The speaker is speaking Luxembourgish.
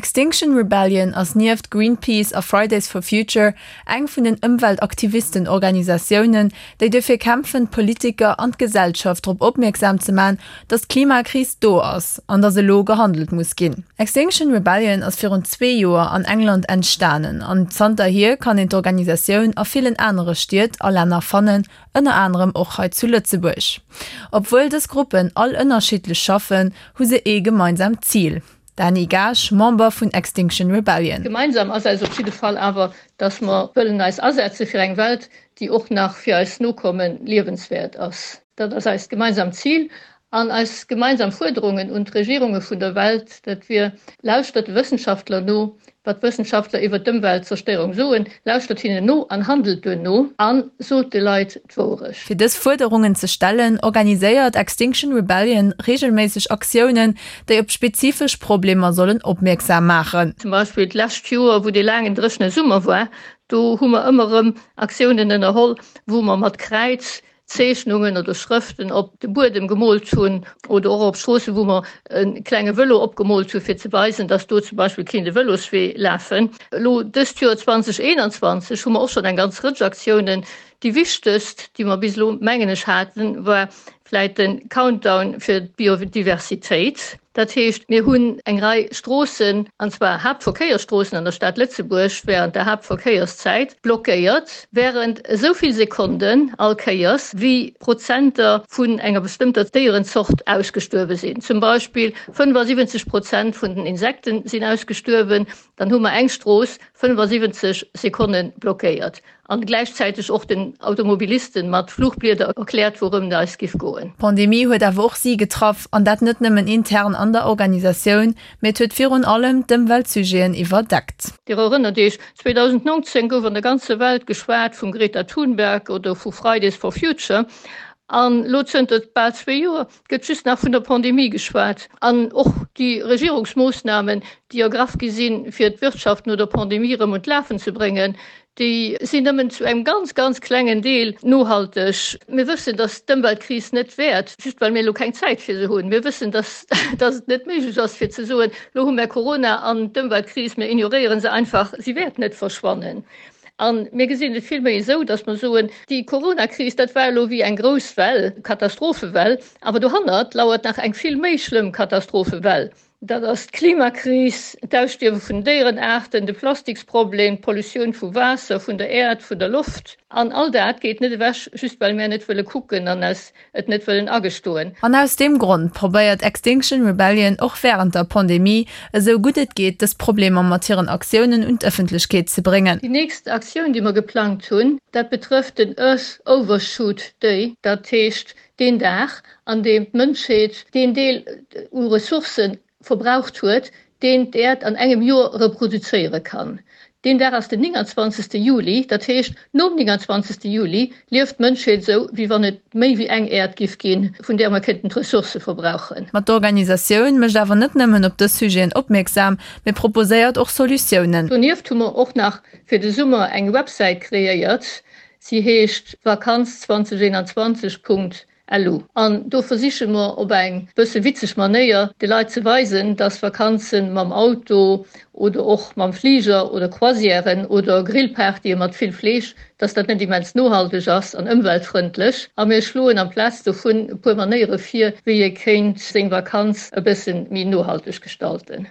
Extinction Rebellion ass nieft Greenpeace a Fridays for Future eng vun den Ëmweltaktivisten-Organisatiounen, déi duerfir kämpfen, d'Politiker an d'Gesellschaft drop opmierksam ze man, datt d'Klimakris do ass an datt elo gehandelt muss ginn. Extinction Rebellion ass virun zwee Joer an England entstanen an zanterhier kann een d'Organisatioun a villen anere Stied a Länner fannen, ënner anerem och hei zu Lëtzebuerg. Obwuel dës Gruppen all ënnerschiddlech schaffen, hu se ee gemeinsaamt Zil. Dany Gaasch, Member vun Extinction Rebellion. Gemeinsam ass eis op jidde Fall awer, dass mer wëllen eis asetze fir eng Welt, déi och nach fir eis Nokomme liewenswäert ass. Dat ass eist gemeinsamt Zil an eis gemeinsam Fuerderungen un d'Regierunge vun der Welt, dat wier, Lauschtert de Wëssenschaftler no, Wat d'Wëssenschaftler iwwer d'Ëmweltzerstéierung soen, lauschtert hinnen no an handelt duerno a sot de Leit d'Wourecht. Fir dës Fuerderungen ze stellen, organiséiert Extinction Rebellion reegelméisseg Aktiounen, déi op spezifesch Problemer sollen opmierksam maachen. Zum Beispill d'lescht Joer, wou dee laangen dréchene Summer war, do hu mer ëmmer erëm Aktiounen ënnerholl, wou mer mat Kräiz Zeechnungen oder Schrëften op de Buedem gemoolt hunn oder och op Stroossen, wou mer e klenge Vëlo opgemoolt hu fir ze weisen, dass do zum Beispill kéint e Vëloswee lafen. Elo dëst Joer 2021 hu mer och schonn eng ganz Rëtsch Aktiounen. Déi wichtegst, déi mer bis elo, mengen ech, haten, war vläit de Countdown fir d'Biodiversitéit. Dat heescht, mir hunn eng Rei Stroossen, an zwar Haaptverkéiersstroossen an der Stad Lëtzebuerg, während der Haaptverkéierszäit blockéiert, während esou vill Sekonden all Kéiers, wéi Prozenter vun enger bestëmmter Déierenzort ausgestuerwe sinn. Zum Beispill 75 Prozent vun den Insekten sinn ausgestuerwen, dann hu mer eng Strooss 75 Sekonne blockéiert. An gläichzäiteg och den Automobilisten mat Fluchblieder erkläert, wourëm et eis giff goen. D'Pandemie huet awer och si getraff, an dat net nëmmen intern an der Organisatioun, mee et huet virun allem d'Ëmweltsujeten iwwerdeckt. Dir erënnert Iech, 2019 gouf an der ganzer Welt geschwat vum Greta Thunberg oder vu Fridays for Future. An elo zënter bal zwee Joer gëtt just nach vun der Pandemie geschwat. An och déi Regierungsmoossnamen, déi ergraff gi sinn, fir d'Wirtschaft no der Pandemie erëm un d'Lafen ze bréngen, Déi sinn nëmmen zu engem ganz, ganz klengen Deel nohalteg. Mir wëssen, dass d'Ëmweltkris net wäert, just well mir elo keng Zäit fir se hunn. Mir wëssen, dass, dass et net méiglech ass fir ze soen, elo hu mär Corona an d'Ëmweltkris, mir ignoréiere se einfach, si wäert net verschwannen. A mir gesinn et villméi esou, dass mer soen, déi Coronakris, dat war elo wéi eng grouss Well, Katastrophewell, awer dohannert lauert nach eng vill méi schlëmm Katastrophewell. Dat ass d'Klimakris, d'Ausstierwe vun Déierenaarten, de Plastiksproblem, d'Pollutioun vu Waasser, vun der Äerd, vun der Loft. An all dat geet net ewech, just well mär net wëlle kucken an eis et net wëllen agestoen. An aus deem Grond probéiert Extinction Rebellion och wärend der Pandemie, esou gutt et geet, dës Problemer mat hiren Aktiounen un d'Ëffentlechkeet ze bréngen. Déi nächst Aktioun, déi mer geplangt hunn, dat betrëfft den Earth Overshoot Day, dat heescht Deen Dag, an deem d'Mënschheet deen Deel u Ressourcë verbraucht huet, deen d'Äerd an engem Joer reproduzéiere kann. Deen Dag ass den 29. Juli, dat heescht, nom 29. Juli lieft d'Mënschheet esou, wéi wann et méi wéi eng Äerd giff ginn, vun där mer kéinten d'Ressourcë verbrauchen. Ma d'Organisatioun mécht awer net nëmmen op dës Sujeten opmierksam, mee proposéiert och Solutiounen. Donieft hu mer och nach fir de Summer eng Websäit kreéiert, Si heescht Vakanz 2021 Punkt lu an do versiche mer op eng bësse witzeg Manéier de Leit ze weisen, dass Vakanze mam Auto oder och mam Fliger oder Croisièren oder Grillpartye mat vill Fleesch, dass dat net immens nohalteg ass an ëmweltfrëndlech. A mir schloen amplaz dovun e puer Manéiere vir, wéi ee kéint seng Vakanz e bësse méi nohalteg gestalten.